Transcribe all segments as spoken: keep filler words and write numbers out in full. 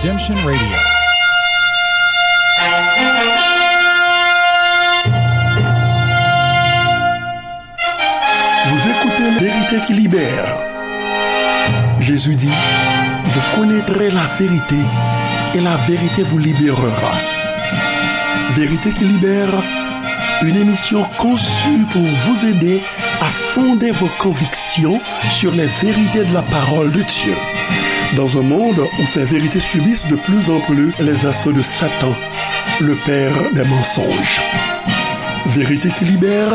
Redemption Radio. Vous écoutez Vérité qui libère. Jésus dit, vous connaîtrez la vérité et la vérité vous libérera. Vérité qui libère, une émission conçue pour vous aider à fonder vos convictions sur les vérités de la parole de Dieu. Dans un monde où ces vérités subissent de plus en plus les assauts de Satan, le père des mensonges. Vérité qui libère,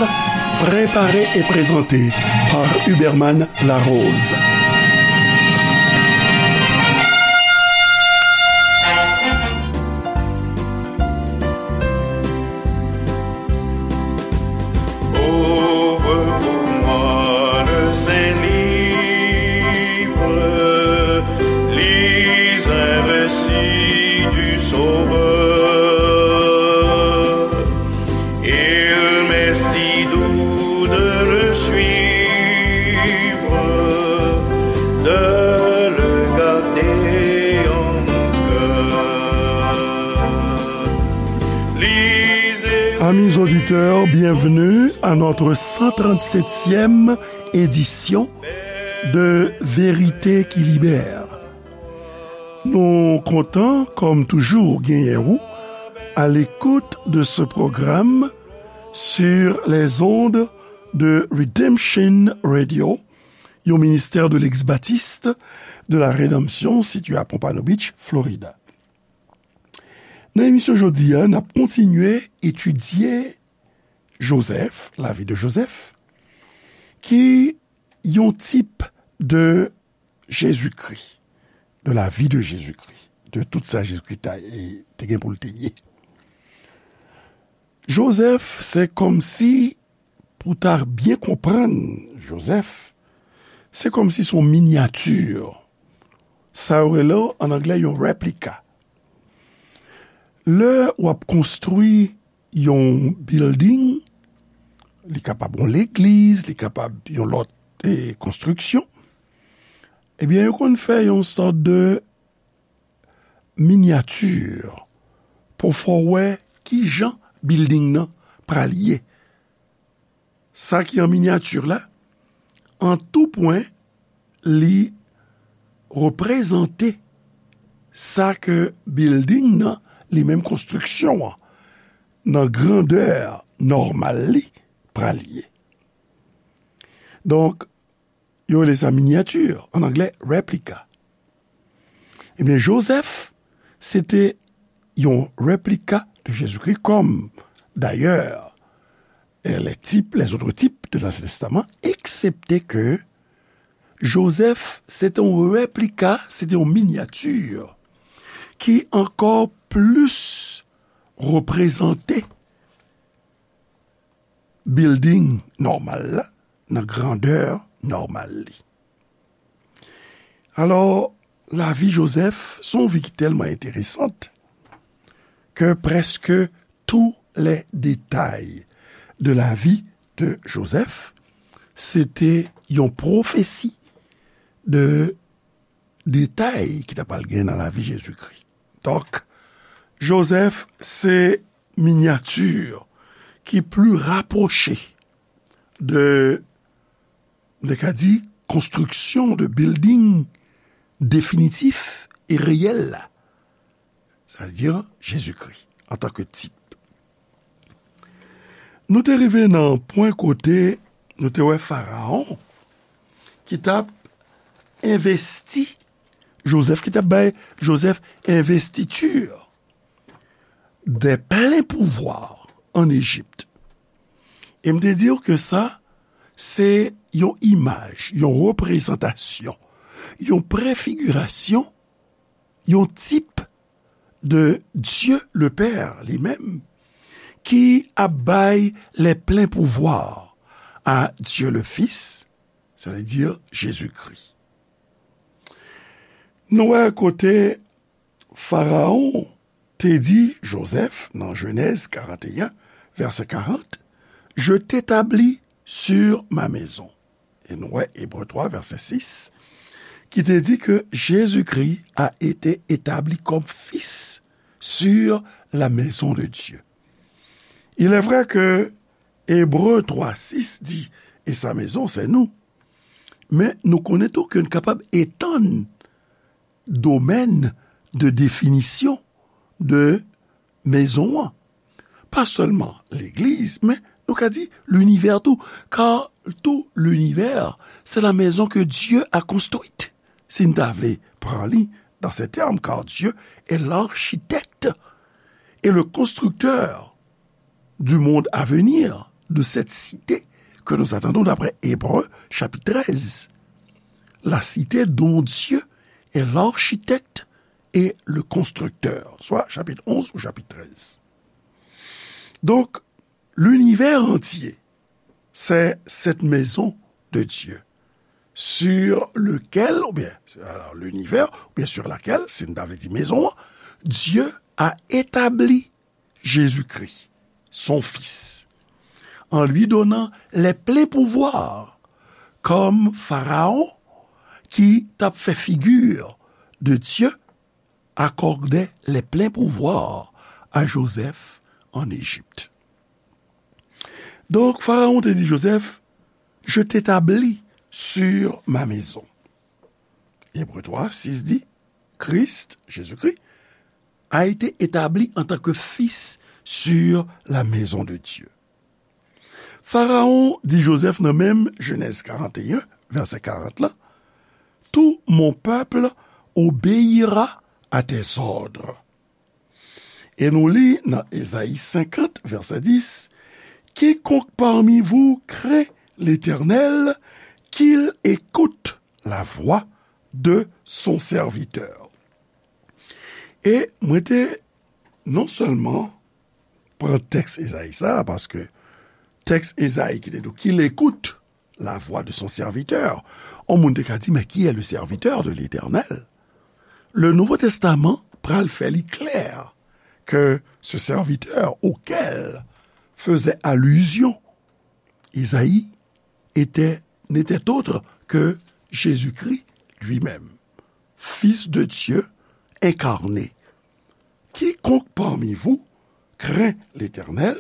préparée et présentée par Huberman Larose. Ouvre pour moi le saint livre, lis un récit du Sauveur. Il m'est si doux de le suivre, de le garder en mon cœur. Lisez. Amis auditeurs, bienvenue à notre cent trente-septième édition de Vérité qui libère. Nou kontan, kòm toujou, genyen ou à l'écoute de ce programme sur les ondes de Redemption Radio, yon ministè de l'ex-baptiste de la Rédemption situé à Pompano Beach, Florida. Nan emisyon jodi a, n ap kontinye etidye Jozèf, lavi de Jozèf, ki yon tip de Jezikri, de la vie de Jésus-Christ, de tout sa Jezikri ta, e, te gen pou l te ye. Jozèf, se kòmsi, pou ta byen konprann Jozèf, se kòmsi se yon minyati. Sa yo rele ann anglè yon replika. Lè w ap konstwi yon building, li kapab yon legliz, li kapab yon lòt, e, konstriksyon, ebyen, yo konn fè yon sòt de minyati pou fè w wè ki jan building nan pral ye. Sa ki an minyati la, an tou pwen, li reprezante sa ke building nan, li menm konstriksyon an, nan grandè nòmal li, pral ye. Donk, yo rele sa minyati, ann anglè, replika. Ebyen, Jozèf, se te yon replika de Jezikri, kòm, dayè, e, les types, les autres types de l'Ancien Testament, eksepte ke Jozèf, se te yon replika, se te yon minyati ki ankò plis reprezante building nòmal la, nan grandè nòmal li. Alò, lavi Jozèf, se yon vi ki tèlman enteresan ke prèske tous les détails de la vie de Joseph, se te yon pwofesi de detay ki ta pral gen nan lavi Jezikri. Donk, Jozèf se minyati ki pli rapwoche de, nou te ka di, konstriksyon de building definitif e reyèl la. Sa vle di Jezikri antanke tip. Nou te rive nan pwen kote nou te wè Farawon ki t ap envesti Jozèf, ki t ap bay Jozèf envestiti de plen pouvwa ann Ejip. E m te di w ke sa, se yon imaj, yon reprezantasyon, yon prefigirasyon, yon tip de Dieu le Père li menm, ki ap bay les pleins pouvoirs à Dieu le Fils, sa vle di Jezikri. Nou wè kote Farawon te di Jozèf nan Jenèz karant e en, vèsè karant, je t'établis sur ma maison. E nou wè Ebre twa, vèsè sis, ki te di ke Jésus-Christ a été établi comme fils sur la maison de Dieu. Il est vrai que Ebre twa sis di, et sa maison, c'est nous. Men nou konnen tou ke n kapab etann domèn de definisyon de mezon an. Pa sèlman legliz, men nou ka di linivè tou, car tout l'univers, c'est la maison que Dieu a construite. Si n ta vle pran li dans ces termes, car Dieu est l'architecte et le constructeur du monde à venir, de cette cité que nous attendons d'après Hébreux chapitre treize. La cité dont Dieu est l'architecte et le constructeur, soit chapitre onze ou chapitre treize. Donc, l'univers entier, c'est cette maison de Dieu sur lequel, ou bien, alors, l'univers, ou bien sur laquelle, si n ta vle di mezon an, Dieu a établi Jésus-Christ, son Fils, en lui donnant les pleins pouvoirs, comme Pharaon, ki t ap fè figure de Dieu, accordait les pleins pouvoirs à Joseph en Égypte. Donk, Farawon te di Joseph, je t'établis sur ma maison. Ebre twa sis di, Christ, Jésus-Christ, a été établi en tant que fils sur la maison de Dieu. Farawon di Joseph nan menm Jenèz karant e en, vèsè karant la, tout mon peuple obéira à tes ordres. E nou li nan Ezayi senkant, vèsè dis, quiconque parmi vous craint l'Éternel, qu'il écoute la voix de son serviteur. E mwen te non sèlman pran tèks Ezayi sa a, paske tèks Ezayi ki te di, qu'il écoute la voix de son serviteur. On moun te ka di, mais qui est le serviteur de l'Éternel? Le Nouveau Testament pral fè li klè que ce serviteur auquel faisait allusion Isaïe était, n'était autre que Jésus-Christ lui-même, Fils de Dieu incarné. Quiconque parmi vous craint l'Éternel,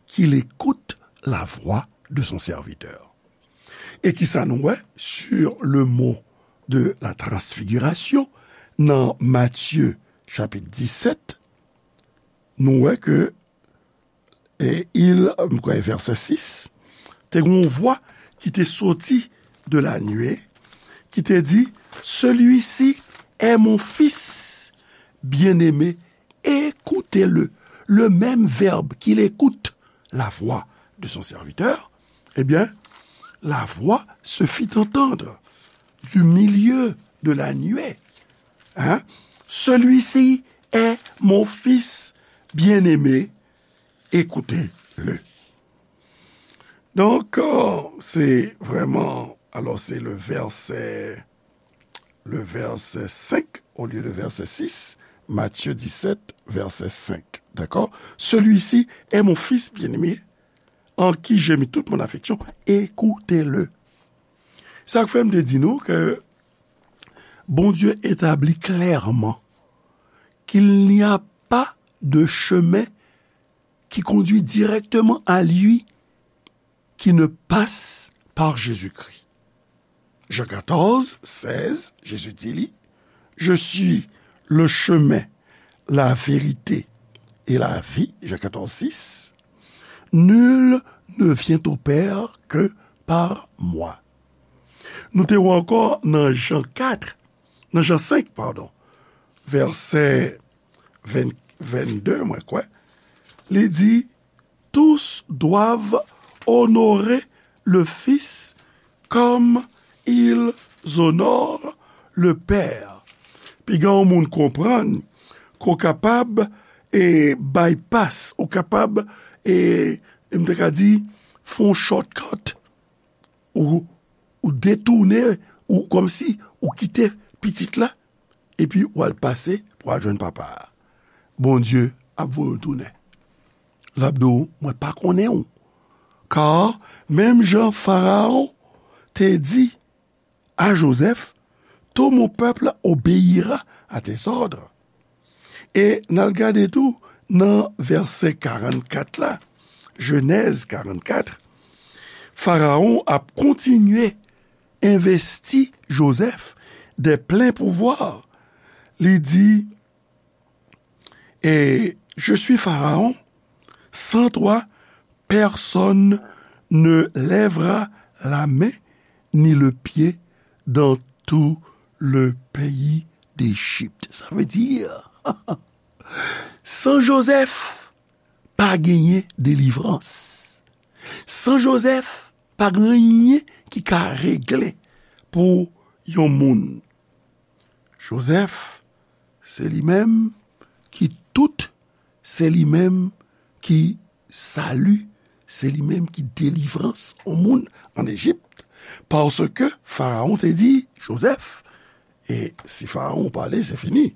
qu'il écoute la voix de son serviteur. E kisa nou wè sur le mont de la transfiguration nan Matye chapit disèt, nou wè ke, e, il, m kwè vèsè sis, te gen yon vwa ki te soti de la nuée, ki te di, celui-ci est mon fils bien-aimé, écoutez-le. Le même verbe qu'il écoute la voix de son serviteur, eh bien, la voix se fit entendre du milieu de la nuée. Hein? Celui-ci est mon fils bien-aimé, écoutez-le. Donk, euh, se vrèman, alò, se le vèsè, le vèsè senk olye de vèsè sis, Matye disèt, vèsè senk. Dakò? Celui-ci est mon fils bien-aimé, en qui j'ai mis toute mon affection, écoutez-le. Sa k fè m te di nou ke Bondye etabli klèman qu'il n'y a pas de chemin qui conduit directement à lui qui ne passe par Jésus-Christ. Jean quatorze, seize, Jésus dit, li, je suis le chemin, la vérité et la vie, Jean quatorze, six. Nul ne vient au Père que par moi. Nou te wè ankò nan Jan kat, nan Jan senk, padon, vèsè ven, vennde, mwen kwè, li di, tous doivent honorer le Fils comme ils honorent le Père. Piga yon moun konprann ke w kapab, e, bypass, ou kapab, e, m te ka di, fè yon shortcut, ou, ou detounen, ou kòmsi ou kite pitit la, epi w al pase pou w al jwenn papa a. Bondye ap voye w tounen. L ap di w, mwen pa konnen w. Ka, menm jan Farawon te di a Jozèf, tout mon peuple obéira à tes ordres. E n al gade tou nan vèsè karannkat la, Jenèz karannkat, Farawon ap kontinye envesti Jozèf de plen pouvwa. Li di, et je suis Pharaon, sans toi, personne ne lèvera la main ni le pied dans tout le pays d'Égypte. Sa vle di, san Jozèf, pa genyen delivrans. San Jozèf, pa gen anyen ki ka regle pou yon moun. Jozèf, se li menm ki tout, se li menm ki sali, se li menm ki delivrans yon moun an Ejip, paske Farawon te di Jozèf, e si Farawon pale, se fini.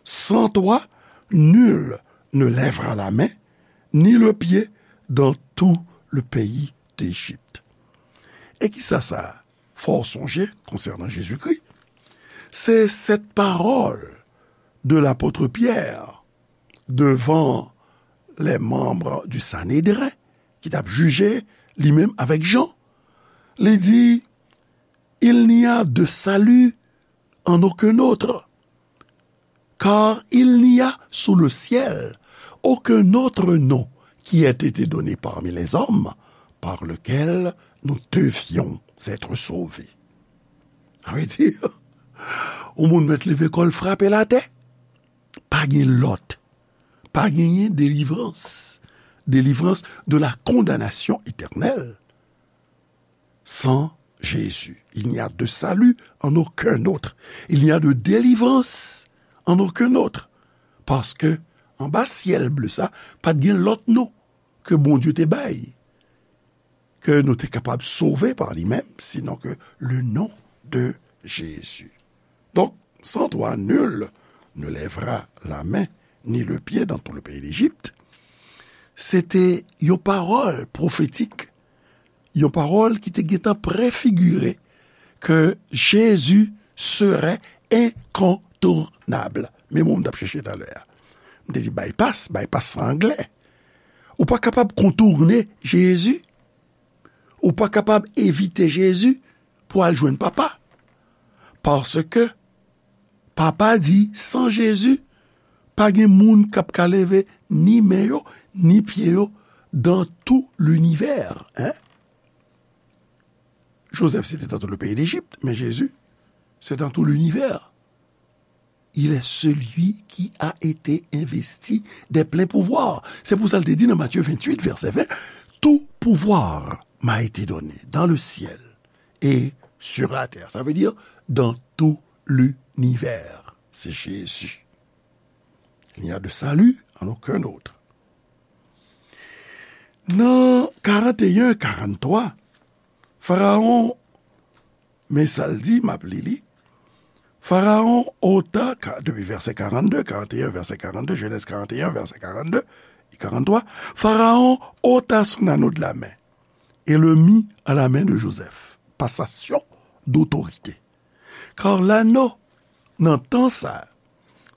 Sans toi, nul ne lèvera la main, ni le pied dans tout le pays d'Égypte. E kisa sa fè w sonje konsènan Jezikri? Se cette parole de l'apôtre Pierre devant les membres du Sanhédrin ki t ap jije li menm avèk Jan. Li di, il n'y a de salut en aucun autre, car il n'y a sous le ciel aucun autre nom qui ait été donné parmi les hommes par lequel nous devions être sauvés. Sa vle di, yon moun mèt leve kò l frape l atè, pa gen lòt, pa genyen delivrans, délivrance de la condamnation éternelle sans Jésus. Il n'y a de salut en aucun autre. Il n'y a de délivrance en aucun autre. Paske anba syèl ble sa, pa t gen lòt non ke Bondye te bay, ke nou te kapab sove pa li menm, sinon ke le nom de Jésus. Donk, sans toi, nul ne lèvera la main ni le pied dans tout le pays d'Égypte, se te yon pawòl pwofetik, yon pawòl ki te gentan prefigire ke Jezi serait incontournable. Men mo m t ap chèche talè a. M te di bypass, bypass se anglè. Ou pa kapab kontourne Jezi. Ou pa kapab evite Jezi pou al jwenn Papa. Paske Papa di, san Jezi, pa gen moun k ap ka leve ni men yo, ni pye yo dans tout l'univers, hein? Joseph, c'était dans tout le pays d'Égypte, mais Jésus, c'est dans tout l'univers. Il est celui qui a été investi des pleins pouvoirs. Se pou sa l te di nan Matthieu vingt-huit, verset vingt, tout pouvoir m'a été donné dans le ciel et sur la terre. Ça veut dire dans tout l'univers. C'est Jésus. Il n'y a de salut en aucun autre. Nan karant e en, karant twa, Farawon, men sa l di, m ap li li. Pharaon ôta, ka-, depi vèsè karannde, karant e en, vèsè karannde, Genèse karant e en, vèsè karannde, e karant twa, Pharaon ôta son anneau de la main et le mit à la main de Joseph. Passation d'autorité. Kar lanno, nan tan sa,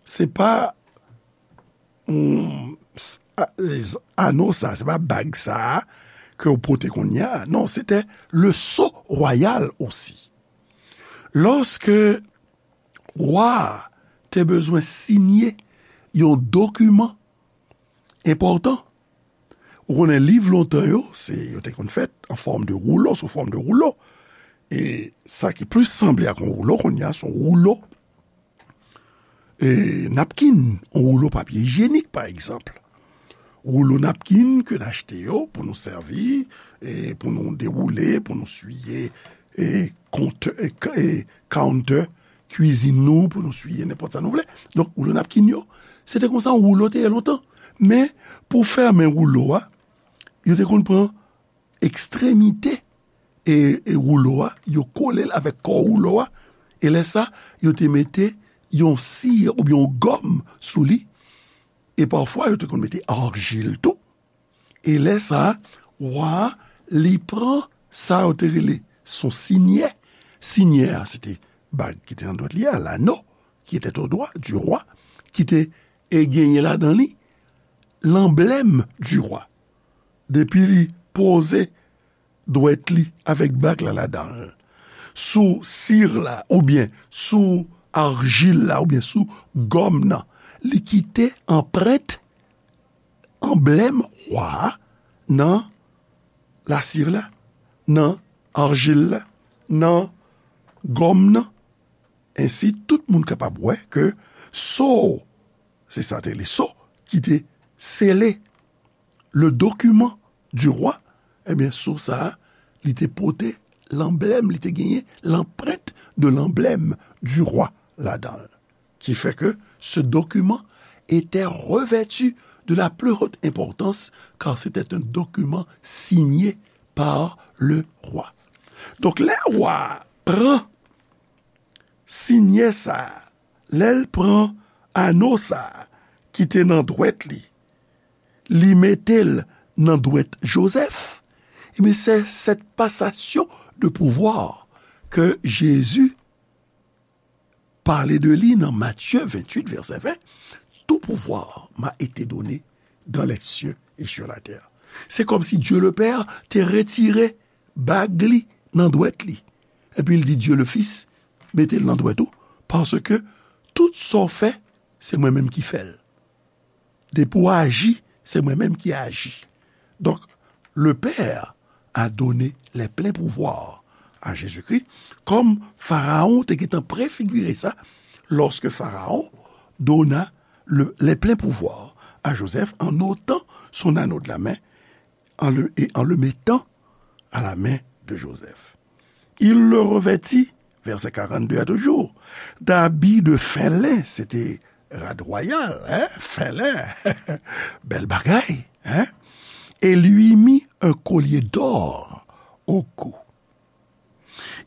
se pa, mm, s-, a-, z-, anno sa, se pa bag sa ke w pote kounye a. Non, se te le sceau royal osi. Lòske wa a te bezwen siyen yon dokiman enpòtan, ou konnen liv lontan yo, se, yo te konn fèt an fòm de woulo, sou fòm de woulo. E sa ki plis sanble ak yon woulo kounye a, se yon woulo, e, napkin, yon woulo papye ijyenik, pa egzanp. Woulo napkin ke n achte yo pou nou sèvi, e, pou nou dewoule, pou nou siye, e, kont-, e, k-, e, counter kwizin nou, pou nou siye nenpòt sa nou vle. Donk, woulo napkin yo, se te konsa yon woulo te ye lontan. Men, pou fèmen woulo a, yo te konn pran ekstremite e, e woulo a, yo kole l avèk kò woulo a, e lè sa, yo te mete yon si oubyen yon gòm sou li, e pafwa, yo te konn mete arjil tou. E lè sa, wa a, li pran sa yo te rele son sinyè. Sinyè a, se te bag ki te nan dwèt li a, l'anneau qui était au doigt du roi, ki te e genyen ladan li lanblèm du roi. Depi li poze dwèt li avèk bag la ladan l, sou sir la, oubyen sou arjil la, oubyen sou gòm nan, li kite anprent, anblèm wa a nan lasir la, nan arjil la, nan gòm nan. Ensi, tout moun kapab wè ke so, se sa te le so ki te sele le document du roi, ebyen, so sa a, li te pote lanblèm, li te genyen l'empreinte de l'emblème du roi ladan l. Qui fait que ce document était revêtu de la plus haute importance, car c'était un document signé par le roi. Donk, lè wa a pran sinyè sa a, lè l pran ano sa a ki te nan dwèt li, li mete l nan dwèt Jozèf, ebyen, c'est cette passation de pouvoir que Jésus parlait de lui dans Matthieu vingt-huit, verset vingt, tout pouvoir m'a été donné dans les cieux et sur la terre. Se kòmsi Dieu le Père te retire bag li nan dwèt li. Epi l di Dieu le Fils, mete l nan dwèt ou, paske tout sa w fè, se mwen menm ki fè l. Depi w aji, se mwen menm ki aji. Donk, le Père a donné les pleins pouvoirs à Jésus-Christ, kòm Farawon te gentan prefigire sa, lorsque Pharaon donna le, les pleins pouvoirs à Joseph en ôtant son anneau de la main en le, et en le mettant à la main de Joseph. Il le revêtit, verset quarante-deux a toujou, d'habits de fin lin, se te rad wayal, hein, fin lin, bèl bagay, hein, et lui mit un collier d'or au cou.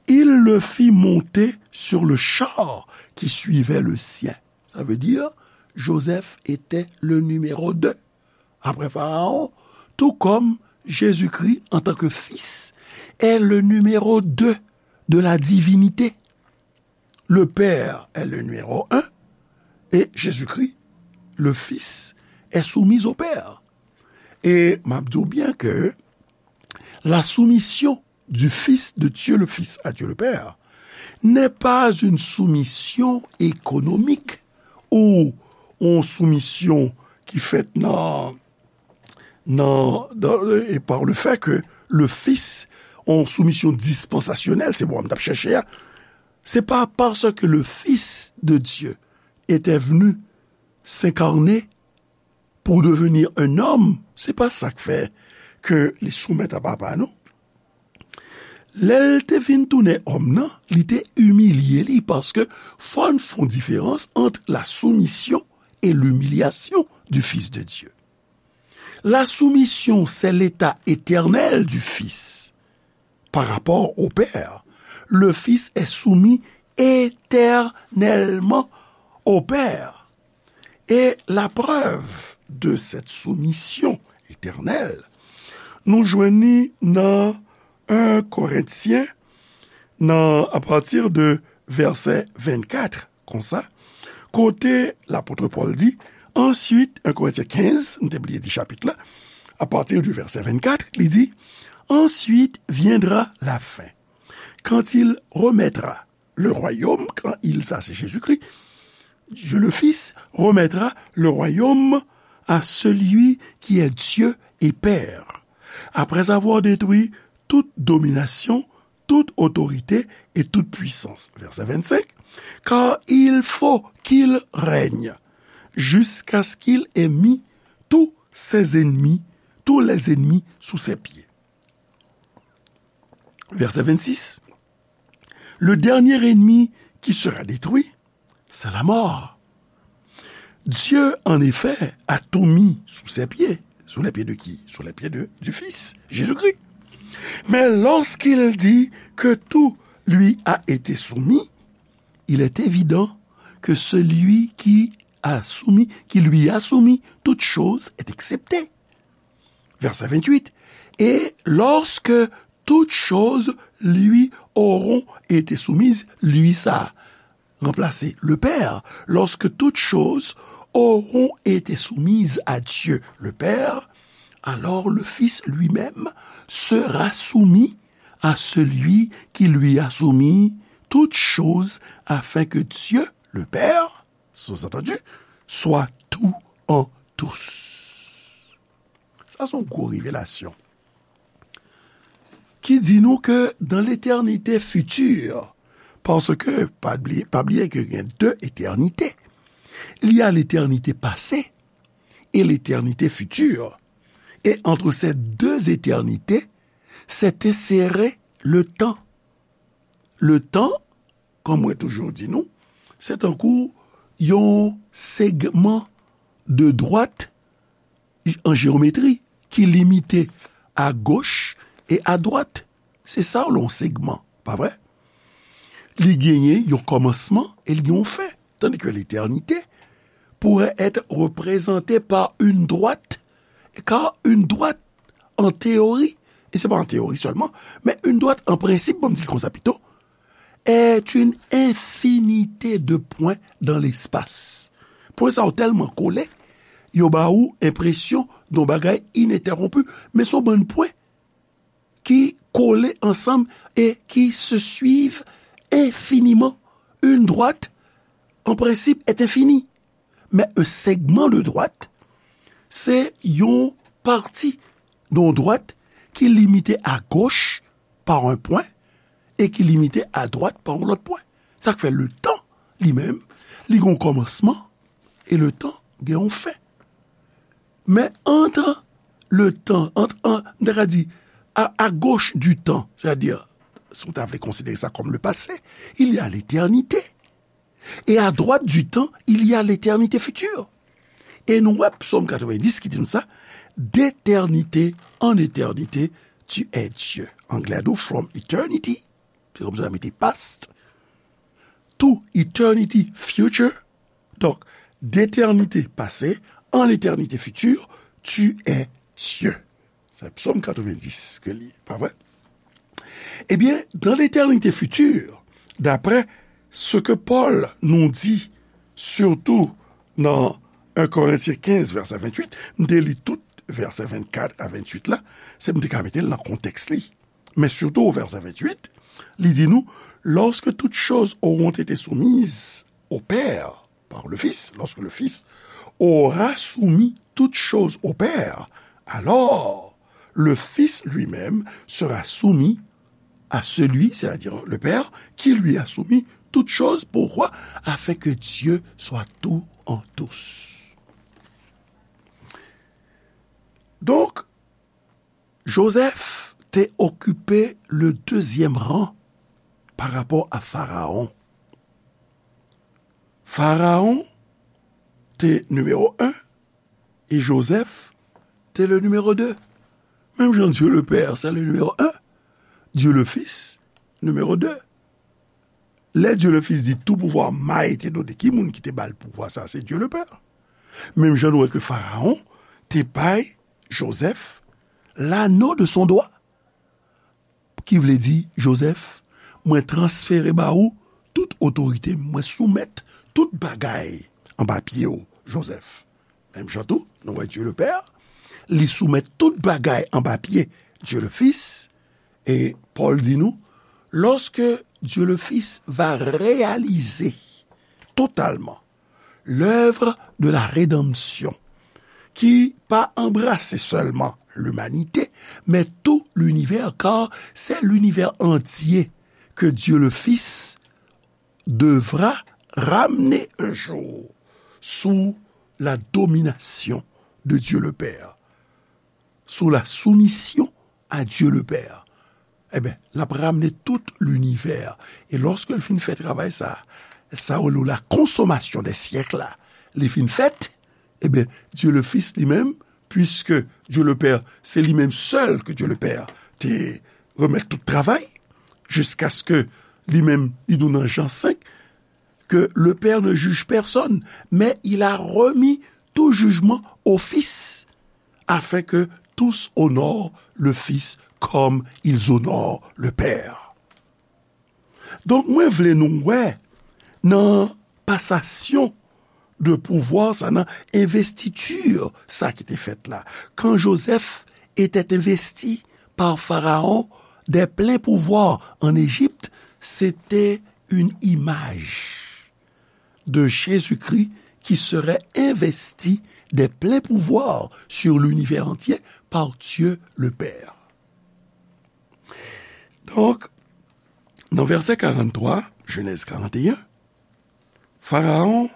Il le fit monter sur le char qui suivait le sien. Ça veut dire, Joseph était le numéro deux après Pharaon, tout comme Jésus-Christ en tant que fils est le numéro deux de la divinité. Le Père est le numéro un et Jésus-Christ, le Fils, est soumis au Père. E m ap di w byen ke la soumission du Fils de Dieu le Fils à Dieu le Père n'est pas une soumission économique ou yon soumisyon ki fèt nan, nan, dans, et par le fait que le Fils, yon soumisyon dispansasyonèl, se mo a m t ap chèche a, c'est pas parce que le Fils de Dieu était venu s'incarner pour devenir un homme, se pa sa k fè ke li soumèt a papa, non. Lè l te vin tounen òm nan, li te imilye li, paske fò n fè yon diferans ant la soumission et l'humiliation du Fils de Dieu. La soumission, c'est l'état éternel du Fils par rapport au Père. Le Fils est soumis éternellement au Père. Et la preuve de cette soumission éternelle, nou jwenn li nan un Korentyen, nan, à partir de verset vingt-quatre, konsa, kote lapot Pòl di, ensuite, un Korentyen kenz, nou te bliye di chapit la, à partir du verset vingt-quatre, li di, ensuite viendra la fin, quand il remettra le royaume, quand il, ça c'est Jésus-Christ, Dieu le Fils remettra le royaume à celui qui est Dieu et Père, après avoir détruit toute domination, toute autorité et toute puissance. Verset vingt-cinq, car il faut qu'il règne jusqu'à ce qu'il ait mis tous ses ennemis, tous les ennemis sous ses pieds. Verset vingt-six, le dernier ennemi qui sera détruit, c'est la mort. Dieu, en effet, a tout mis sous ses pieds. Sous les pieds de qui ? Sous les pieds de, du Fils, Jésus-Christ. Mais lorsqu'il dit que tout lui a été soumis, il est évident que celui qui a soumis, qui lui a soumis toute chose est excepté. Verset vingt-huit. Et lorsque toutes choses lui auront été soumises, lui sa, remplacer le Père, lorsque toutes choses auront été soumises à Dieu le Père, alors le Fils lui-même sera soumis à celui qui lui a soumis toutes choses, afin que Dieu le Père, sous-entendu, soit tout en tous. Sa se yon gwo revelasyon ki di nou ke dans l'éternité future, paske, pa bliye, pa bliye ke gen de eternite, il y a l'éternité passée et l'éternité future. Et entre ces deux éternités s'est inséré le temps. Le temps, kòm mwen toujou di nou, se tankou yon segman de dwat an jewometri ki limite à gauche et à droite. Se sa w yon segman, pa vre? Li genyen yon kòmansman e li gen yon fen. Tandis que l'éternité pourrait être représentée par une droite, car une droite, en théorie, et c'est pas en théorie seulement, mais une droite en principe, bon, m di l konsa pito, est une infinité de points dans l'espace. Pwen sa yo tèlman kole, yo ba ou enpresyon de yon bagay inentèwonpi, men se yon bann pwen ki kole ansanm et qui se suivent infiniment. Une droite, en principe, est infinie. Mais un segment de droite, c'est une partie d'une droite qui est limitée à gauche par un point et qui est limitée à droite par un autre point. Sa k fè le temps, li menm, li gen yon kòmansman, e le temps gen yon fen. Men entre le temps, entre, an, m ta ka di, à, à gauche du temps, c'est-à-dire, si w ta vle konsidere sa kòm le passé, il y a l'éternité. Et à droite du temps, il y a l'éternité future. E nou wè Psaume quatre-vingt-dix ki di nou sa, d'éternité en éternité, tu es Dieu. Anglè a di w, from eternity, se kòmsi w ta mete past, to eternity future. Donk, d'éternité passée en éternité future, tu es Dieu. Se Psaume quatre-vingt-dix ke li, pa vre? Ebyen, dans l'éternité future, d'après ce que Paul nous dit, surtout dans un Corinthiens quinze, verset vingt-huit, m te li tout vèsè vennkat a venntuit la, se m te ka mete l nan kontèks li. Men sitou o vèsè venntuit, li di nou, lorsque toutes choses auront été soumises au Père, par le Fils, lorsque le Fils aura soumis toutes choses au Père, alors le Fils lui-même sera soumis à celui, c'est-à-dire le Père, qui lui a soumis toutes choses. Pourquoi? Afin que Dieu soit tout en tous. Donk, Jozèf te okipe le dezyèm ran pa rapò a Farawon. Farawon te nimewo en e Jozèf te le nimewo de. Menm jan Dieu le Père se le nimewo en, Dieu le Fils nimewo de. Lè Dieu le Fils di tout pouvoir m'a été donné, ki moun ki te ba l pouvwa sa? Se Dieu le Père. Menm jan nou wè ke Farawon te bay Jozèf l'anneau de son doigt, ki vle di, Jozèf, mwen transfere ba ou tout otorite m, mwen soumèt tout bagay anba pye w, Jozèf. Menm jan tou, nou wè Dieu le Père, li soumèt tout bagay anba pye Dieu le Fils, e Pòl di nou, lorsque Dieu le Fils va réaliser totalement l'œuvre de la rédemption, ki pa anbrase sèlman limanite, men tou linivè, kar se linivè antye ke Dieu le Fils devra ramener un jour sous la domination de Dieu le Père, sous la soumission à Dieu le Père. Eben, l ap ramne tout linivè. E lòske l fin fè travay sa, sa yo rele la consommation des siècles la, li fin fèt, eben, Dieu le Fils li menm, puisque Dieu le Père, se li menm sèl ke Dieu le Père te remèt tout travay, jiskaske li menm, li di w nan Jan senk, que le Père ne juge personne, mais il a remis tout jugement au Fils, afin que tous honorent le Fils comme ils honorent le Père. Donk, mwen vle nou wè, nan pasasyon de pouvwa sa, nan envestiti sa ki te fèt la. Quand Joseph était investi par Pharaon des pleins pouvoirs en Égypte, c'était une image de Jésus-Christ qui serait investi des pleins pouvoirs sur l'univers entier par Dieu le Père. Donk, nan vèsè karant twa, Jenèz karant e en, Pharaon,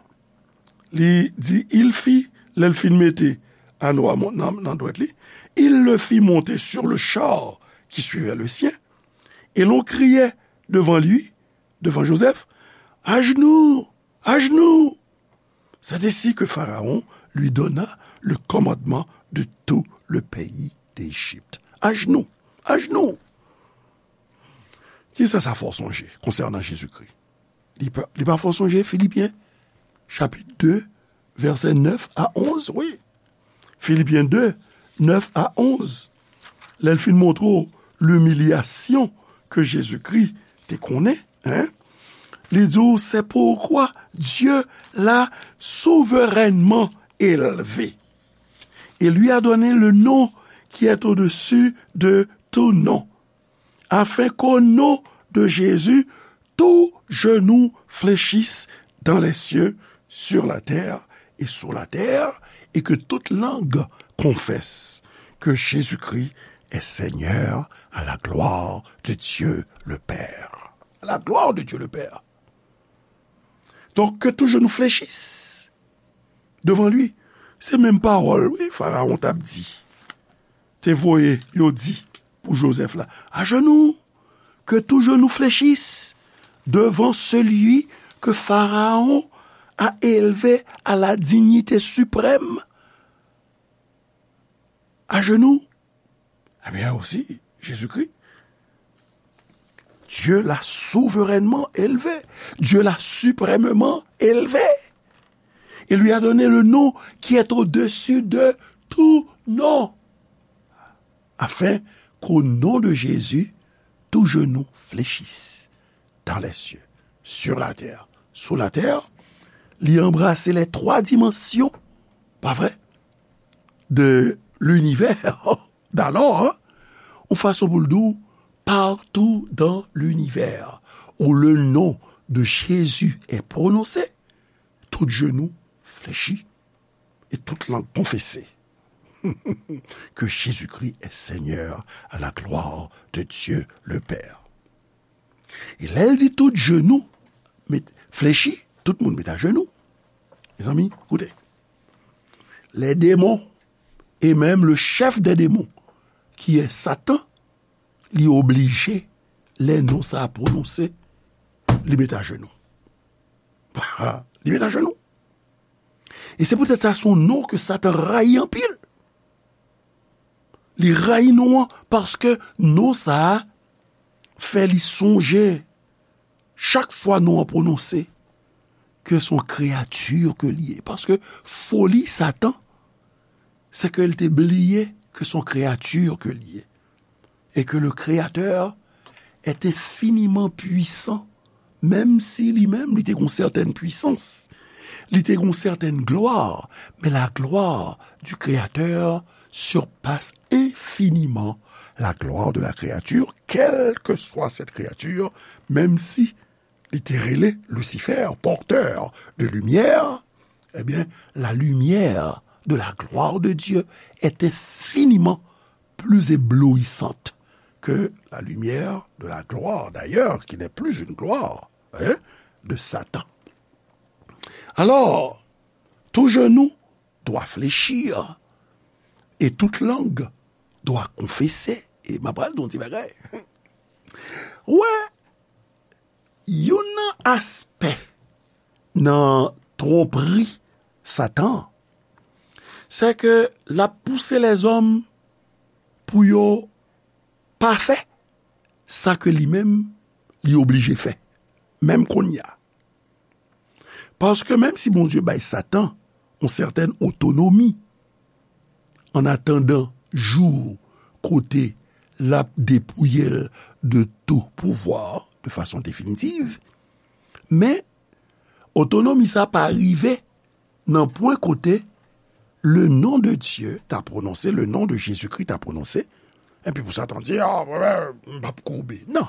li di, il fit, lè l fin mete ano a nan, nan dwèt li, il le fit monter sur le char qui suivait le sien, et l'on criait devant lui, devant Joseph, à genoux, à genoux. C'est ainsi que Pharaon lui donna le commandement de tout le pays d'Égypte. À genoux, à genoux. Kisa sa fè w sonje konsènan Jezikri? Li pa, li pa fè w sonje Filipyen, chapit de, vèsè nèf a onz, wi. Filipyen de, nèf a onz. Lè l fin montre w limilyasyon ke Jezikri te konnen, en, li di w, c'est pourquoi Dieu l'a souverainement élevé et lui a donné le nom qui est au-dessus de tout nom, afin qu'au nom de Jésus, tout genou fléchisse dans les cieux, sur la terre et sous la terre, et que toute langue confesse que Jésus-Christ est Seigneur, à la gloire de Dieu le Père. À la gloire de Dieu le Père. Donc, que tout genou fléchisse devant lui. Se menm pawòl, wi, Farawon t ap di, te voye yo di pou Jozèf la, à genoux, que tout genou fléchisse devant celui que Pharaon a élevé à la dignité suprême. À genoux. Ebyen, aussi, Jésus-Christ, Dieu l'a souverainement élevé. Dieu l'a suprêmement élevé. Il lui a donné le nom qui est au-dessus de tout nom, afin qu'au nom de Jésus, tout genou fléchisse dans les cieux, sur la terre, sous la terre. Li anbrase les trois dimensions, pa vre, de l'univers. D'alò, hein, yon fason pou l di w, partout dans l'univers où le nom de Jésus est prononcé, tout genou fléchit et toute langue confesse que Jésus-Christ est Seigneur, à la gloire de Dieu le Père. E lè l di tout genou met, flechi, tout moun met ajenou. Mezanmi, koute. Les démons, et même le chef des démons, qui est Satan, li oblije, lè non sa a pwononse, li met ajenou. Li met ajenou. E se poutèt sa, se yon non ke Satan rayi anpil. Li rayi non an, paske non sa a fè li sonje, chak fwa non an pwononse, ke se yon kreyati ke li ye. Paske foli Satan, se ke l te bliye ke se yon kreyati ke li ye. Et que le Créateur est infiniment puissant, menm si li menm, li te gon sètèn pwisans, li te gon sètèn glwa, men la gloire du Créateur surpasse infiniment la gloire de la créature, quelle que soit cette créature, menm si li te rele Lucifer, porteur de lumière, eh bien, la lumière de la gloire de Dieu est infiniment plus éblouissante que la lumière de la gloire, d'ailleurs, qui n'est plus une gloire, hein, de Satan. Alors, tout genou doit fléchir et toute langue doit confesser. E m ap pral di yon ti bagay. Wè, youn nan aspè nan twonpri Satan, se ke l ap pouse lèzòm pou yo pa fè sa ke li menm li oblije fè, menm kounye a. Paske menm si Bondye bay Satan yon sètèn otonomi, an atandan jou kote l ap depouye l de tou pouvwa de fason definitiv, men Otonomi sa pa rive nan pwen kote le nom de Dieu ta pwononse, le nom de Jésus-Christ ta pwononse, epi pou Satan di, ah, m p ap koube. Non.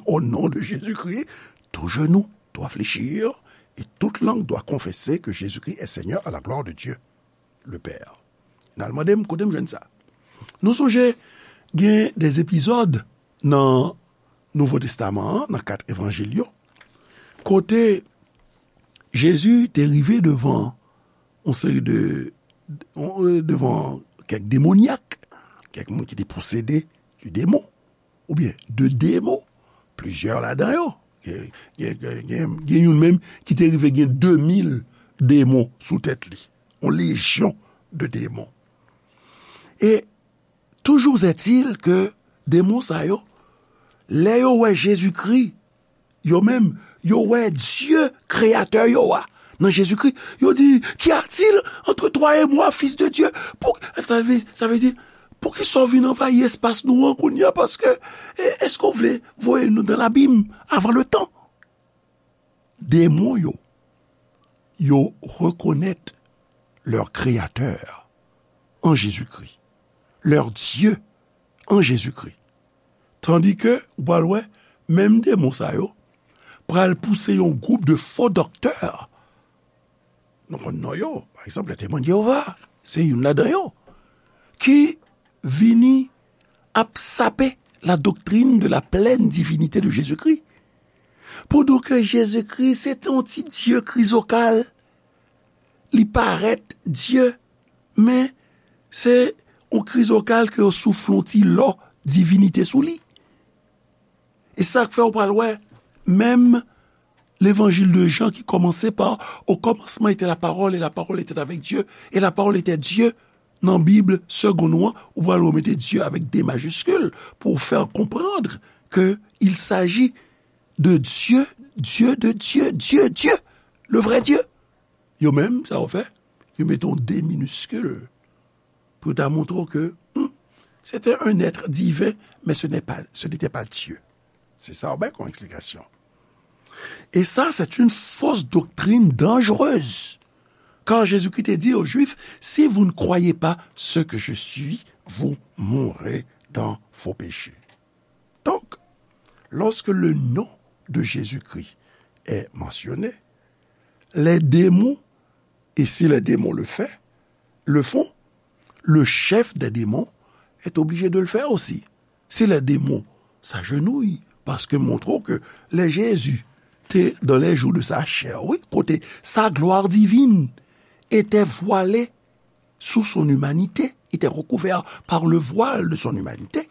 Au nom de Jésus-Christ, tout genou doit fléchir et toute langue doit confesser que Jésus-Christ est Seigneur à la gloire de Dieu le Père. N al mande m kote m jwenn sa. Nou sonje gen de epizòd nan Nouvo Testaman an, nan kat evanjil yo, kote Jezi te rive devan yon seri de, devan kèk demonyak, kèk moun ki te posede de demon, oubyen de demon, plizyè ladan yo. Gen, gen, gen, gen, gen youn menm ki te rive gen de mil demon sou tèt li. Yon lejyon de demon. E toujou est-il ke demon sa yo, lè yo wè Jezikri, yo menm, yo wè Dye, kreyatè yo a, nan Jezikri, yo di, qu'y a-t-il entre toi et moi, fils de Dieu? Pou, sa vle, sa vle di, poukisa w vin anvayi espas nou an kounye a? Paske, e, èske w vle voye nou dans l'abîme avant le temps? Demon yo, yo rekonèt leur créateur en Jésus-Christ, leur Dieu en Jésus-Christ. Tandis que, ou pral wè, menm demon sa yo pral pouse yon gwoup de fo doktè. Nou konn non yo, pa egzanp, les Témoins de Jéhovah, se youn ladan yo, ki vini ap sape la doctrine de la pleine divinité de Jésus-Christ. Pandan ke Jezikri se te yon ti dye krizokal, li parèt Dye, men se yon krizokal ke yo soufle yon ti lò divinite sou li. E sa k fè ou pral wè, menm levanjil de Jan ki kòmanse pa, au commencement était la parole, et la parole était avec Dieu, et la parole était Dieu, nan Bib segonn ou an, ou pral remete Dieu avec D majuscule pour faire comprendre que il s'agit de Dieu, Dieu de Dieu, Dieu, Dieu, le vrai Dieu. Yo menm, sa yo fè, yo mete yon D miniskil pou ta montre w ke, hmm, c'était un être divin, mais ce n'est pas, ce n'était pas Dieu. C'est ça, ben, comme explication. Et ça, c'est une fausse doctrine dangereuse. Car Jésus-Christ te dit aux Juifs, si vous ne croyez pas ce que je suis, vous mourrez dans vos péchés. Donc, lorsque le nom de Jésus-Christ est mentionné, les démons, et si les démons le fait, le font, le chef des démons est obligé de le faire aussi. Si les démons s'agenouillent, paske montre w ke lè Jezi te dans les jours de sa chair, wi, kote sa gloire divine était voilée sous son humanité, était recouvert par le voile de son humanité.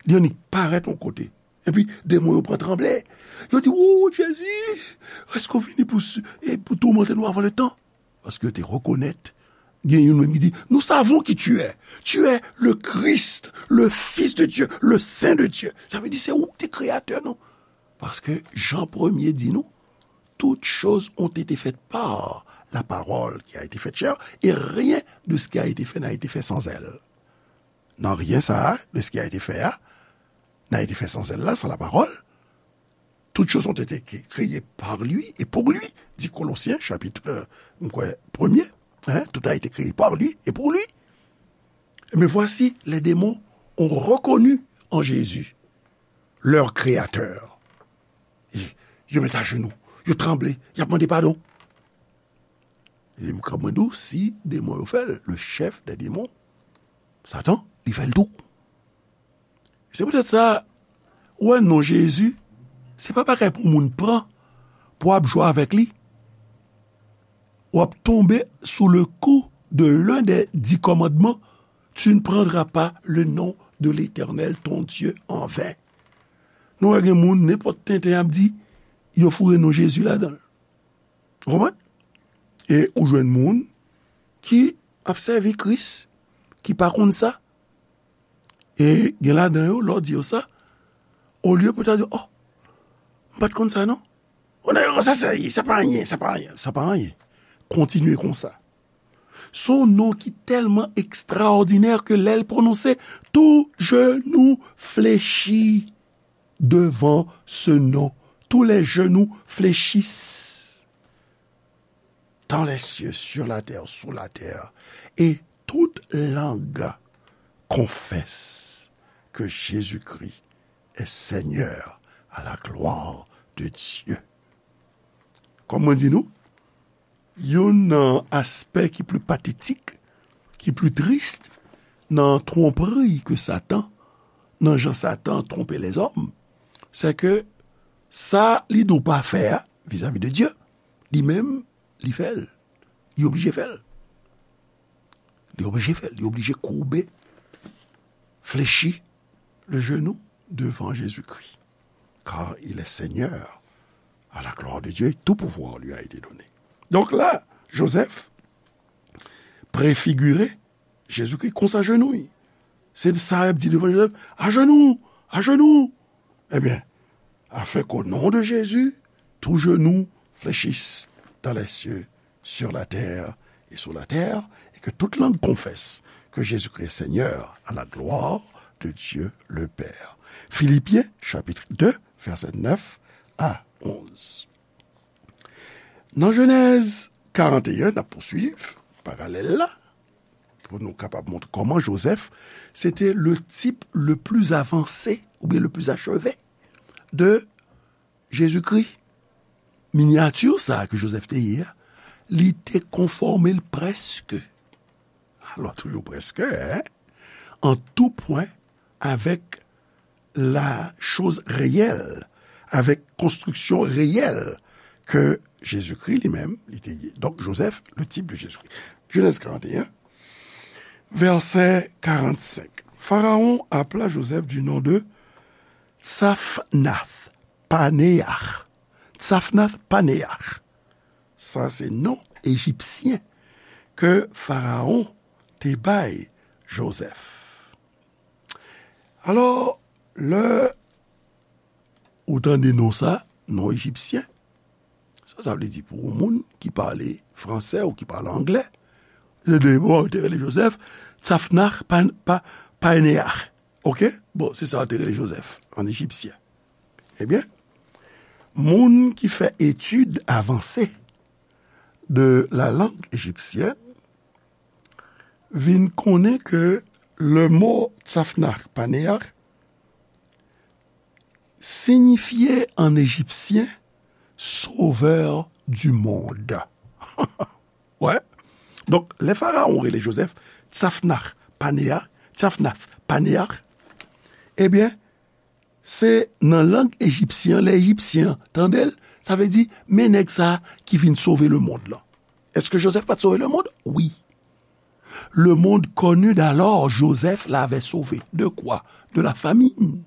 Li annik parèt yon kote. Epi, demon yo pran tranble. Yo di, "Wou, Jezi, èske w vini pou, e pou toumante nou avan le tan?" Paske yo te rekonèt, gen youn menm ki di, "Nous savons qui tu es. Tu es le Christ, le Fils de Dieu, le Saint de Dieu." Sa vle di, se ou ki te kreyatè nou. Paske Jan premye di nou, toutes choses ont été faites par la parole qui a été faite chair, et rien de ce qui a été fait n'a été fait sans elle. Nan rien sa a, de ce qui a été fait a, n'a été fait sans elle la, sans la parole. Toutes choses ont été cré-, créées par lui et pour lui, dit Colossiens, chapitre, euh, m kwè, premye. Hein, tout a été créé par lui et pour lui. Mais voici, les démons ont reconnu en Jésus leur créateur. E yo met ajenou, yo tranble, y ap mande padon. E m ka mande w, si demon yo fè l, le chef des démons, Satan, li fè l tou. Se poutèt sa, ou wè non Jezi, se pa bagay pou moun pran, pou ap jwe avèk li. W ap tonbe sou le kou de l'un des dix commandements, tu ne prendras pas le nom de l'Éternel, ton Dieu, en vain. Nou wè gen moun, nenpòt tenten ap di, yo foure non Jezi ladan l. Ou konprann? E ou jwenn moun ki ap sèvi Kris, ki pa konn sa. E gen ladan yo, lè w di yo sa, olye pou ta di, "Oh, m pa t konn sa non." "Oh, non, sa, sa, sa pa anyen, sa pa anyen, sa pa anyen." Kontinye konsa. Son non ki tèlman ekstraòdinè ke lè l pwononse, tout genou flechi devant ce nom. Tous les genoux fléchissent. dans les cieux, sur la terre, sous la terre, et toute langue confesse que Jésus-Christ est Seigneur à la gloire de Dieu. Kòm mwen di nou, youn nan aspè ki pli patetik, ki pli tris nan twonpri ke Satan, nan jan Satan twonpe lèzòm, se ke sa li di w pa fè a, vizavi de Dye, li menm, li fè l. Li oblije fè l. Li oblije fè l. Li oblije koube, flechi le genou devant Jésus-Christ. Car il est Seigneur à la gloire de Dieu et tout pouvoir lui a été donné. Donk la, Joseph prefigire Jezikri konsa jenou l. Se sa y ap di devan Joseph, ajenou, ajenou. Ebyen, afin qu'au nom de Jésus, tout genou fléchisse dans les cieux, sur la terre et sous la terre, et que toute langue confesse que Jésus-Christ est Seigneur à la gloire de Dieu le Père. Philippiens chapitre deux, versets neuf à onze. Nan Jenèz karant e en, n ap pouswiv paralèl la, pou nou kapab montre kòman Joseph, se te le type le plus avancé, oubyen le plus achevé de Jezikri. Minyati sa ke Joseph te ye a, li te konfòme l prèske, alò toujou prèske, en, en tout point avec la chose réelle, avec construction réelle que Jésus-Christ lui-même, li te ye. Donk, Joseph, le type de Jésus-Christ. Genèse quarante et un, verset quarante-cinq. Pharaon appela Joseph du nom de Tsafnath Panéah. Tsafnath Panéah. Sa se non ejipsyen ke Pharaon te bay Joseph. Alò, lè ou tande non sa, non ejipsyen, sa, sa vle di pou yon moun ki pale fransè ou ki pale anglè, le de, bon, yo te rele Joseph Tsafnah Pa-, Pa-, Paneah. Oke? Bon, se sa yo te rele Joseph, an ejipsyen. Ebyen, moun ki fè etid avanse de la langue égyptienne vin konnen ke le mo Tsafnah Paneah signifie en égyptien sauveur du monde. Wè. Donk, lè Farawon rele Joseph Tsafnah Paneah, Tsafnath Paneah, ebyen, se nan lang ejipsyen an, lè ejipsyen an tande l, sa vle di, men nèg sa a ki vin sove lemonn lan. Èske Joseph pa t sove lemonn? Wi. Le monde connu d'alors, Joseph l'avait sauvé. De quoi? De la famine.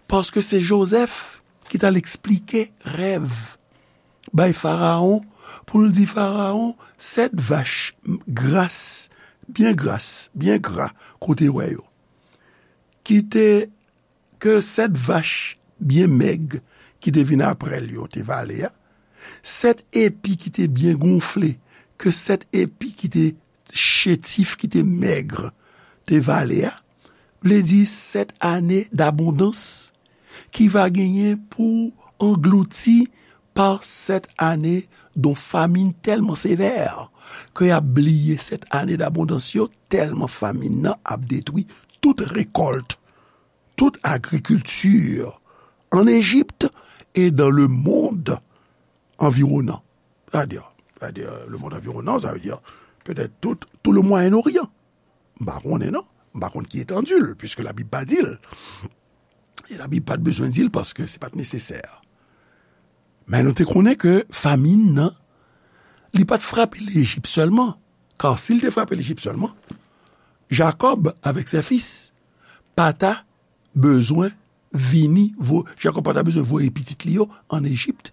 Paske se Joseph ki t al eksplike rèv bay Farawon, pou l di Farawon, sèt vach gras, byen gras, byen gra, kote wè yo, ki te, ke sèt vach byen mèg ki te vin apre l yo te vale a, sèt epi ki te byen gonfle, ke sèt epi ki te chétif, ki te mèg, te vale a, vle di sèt ane dabondans ki va genyen pou anglouti pa sèt ane don famin tèlman sevè ke y ap bliye sèt ane dabondans yo, tèlman famin nan ap detwi tout rekòlt, tout agrikilti an Ejip e dans le monde environnant. Sa vle di, sa vle di, le monde environnant, sa vle di petèt tout, tout le Moyen-Orient. M pa konnen non. M pa konn ki etandi l, piske Labib pa di l. E Labib pa t bezwen di l paske se pa t nesesè. Men nou te konnen ke famin nan, li pa t frape Lejip sèlman. Ka si l te frape Lejip sèlman, Jakòb avèk ses fils pa ta bezwen vini, vo-, Jakòb pa ta bezwen voye pitit li yo an Ejip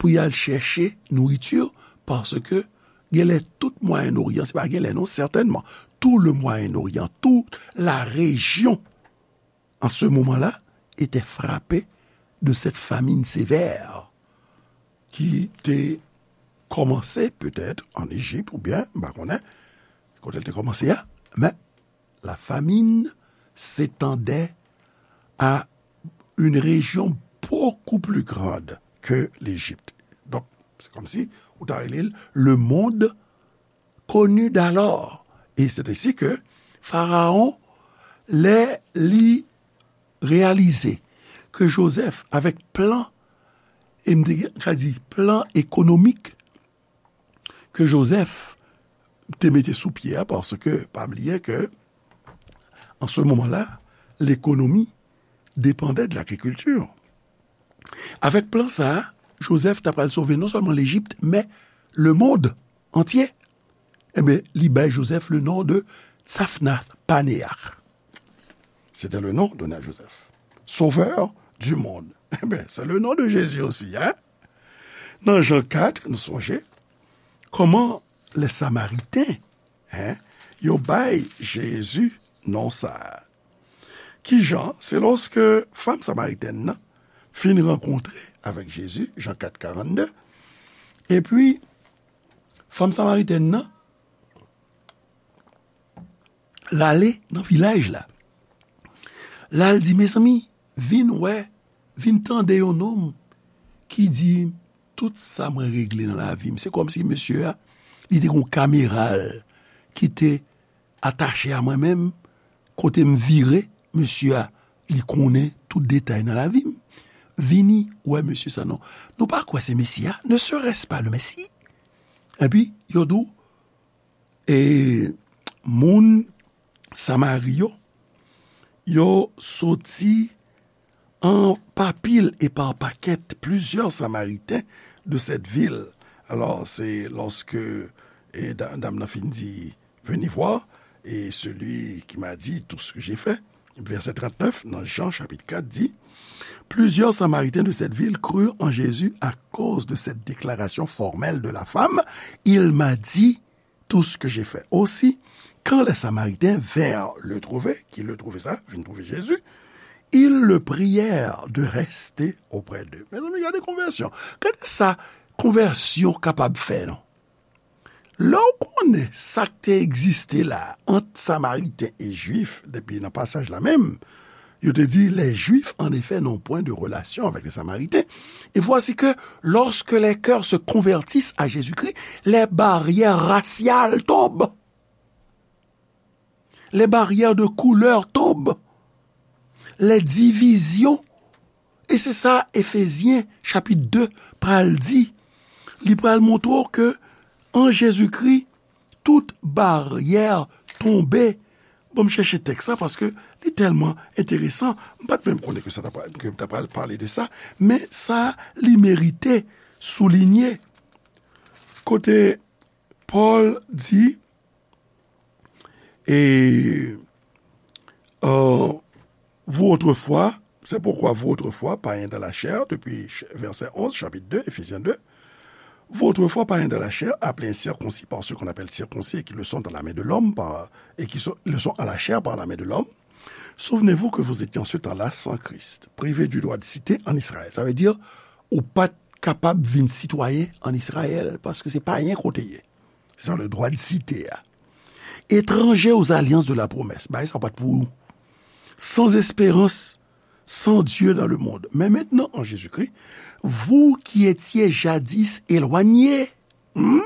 pou y al chèche nouriti, paske genlè tout Mwayen Oryan, se pa genlè non, sètènman, tout le Moyen-Orient, toute la région, en ce moment-là, était frappée de cette famine sévère ki te kòmanse petèt an Ejip oubyen, m pa konnen, kote l te kòmanse a, men la famine s'étendait à une région beaucoup plus grande que l'Égypte. Donk, se kòmsi ou ta rele l le monde connu d'alors. Et c'est ainsi que Pharaon, lè li reyalize ke Joseph, avèk plan, e m te ka di plan ekonomik ke Joseph te mete sou pye a, paske pa bliye ke, an se moman la, lekonomi depandè de lagrikilti. Avèk plan sa a, Joseph ta pral sove non sèlman Lejip, men lemonn antye. Ebyen, li bay Joseph le nom de Tzaphnath Panéah. C'était le nom donné à Joseph. Sauveur du monde. Ebyen, c'est le nom de Jésus aussi, hein? Nan Jan kat, nou sonje kòman lè Samariten, hein, yo bay Jezi non sa a. Kijan? Se lòske fanm samaritèn nan fin rankontre avèk Jezi, Jan kat karannde, epi fanm samaritèn nan, l ale nan vilaj la. La, l di, "Mezanmi, vin wè, vin tande yon nonm ki di tout sa mwen regle nan lavi m." Se kòmsi mesye a, li te gon kamera l ki te atache a mwen menm, kote m vire, mesye a, li konnen tout detay nan lavi m. Vini wè mesye sa non. Nou pa kwè se Mesi a, ne serait-ce pas le Messie? Epi, yo di w, e, moun Samari yo, yo soti an pa pil e pa pakèt, plusieurs Samaritains de cette ville. Alors, c'est lorsque, e, da-, dam nan fin di, venez voir, et celui qui m'a dit tout ce que j'ai fait. Verset trente-neuf, dans Jean chapitre quatre, dit, plusieurs Samaritains de cette ville crurent en Jésus à cause de cette déclaration formelle de la femme. Il m'a dit tout ce que j'ai fait. Aussi, quand les Samaritains vinrent le trouver, ki le trouve sa, vin trouve Jezi, ils le prièrent de rester auprès d'eux. Mezanmi, gade konvèsyon. Gade sa konvèsyon kapab fè, non? Lè w konnen sa k te egziste la ant Samariten e Jwif, depi nan pasaj la menm, yo te di, les Juifs, en effet, n'ont point de relation avec les Samaritains. Et voici que, lorsque les cœurs se convertissent à Jésus-Christ, les barrières raciales tombent. Les barrières de couleur tombent. Les divisions. E se sa Efezyen chapit de pral di. Li pral montre w ke an Jezikri, tout baryè tonbe. Bon, m chèche tèks la paske li tèlman enteresan. M pa t menm konnen ke sa ta pral, ke m ta pral pale de sa, men sa li merite soulinye. Kote Pòl di, et, euh, vous autrefois, c'est pourquoi vous autrefois, païens dans la chair, depuis ch-, verset onze, chapitre deux, Éphésiens deux, vous autrefois, païens dans la chair, appelés incirconcis par ceux qu'on appelle circoncis et qui le sont à la main de l'homme, par, et qui sont, le sont à la chair par la main de l'homme, souvenez-vous que vous étiez en ce temps-là sans Christ, privés du droit de cité en Israël. Sa vle di, ou pa t kapab vin sitwayen ann Izrayèl, paske se payen ke w te ye. Se sa, le droit de cité a. Étrangers aux alliances de la promesse. Bagay sa pa t pou ou. Sans espérance, sans Dieu dans le monde. Mais maintenant, en Jésus-Christ, vous qui étiez jadis éloignés, hmm,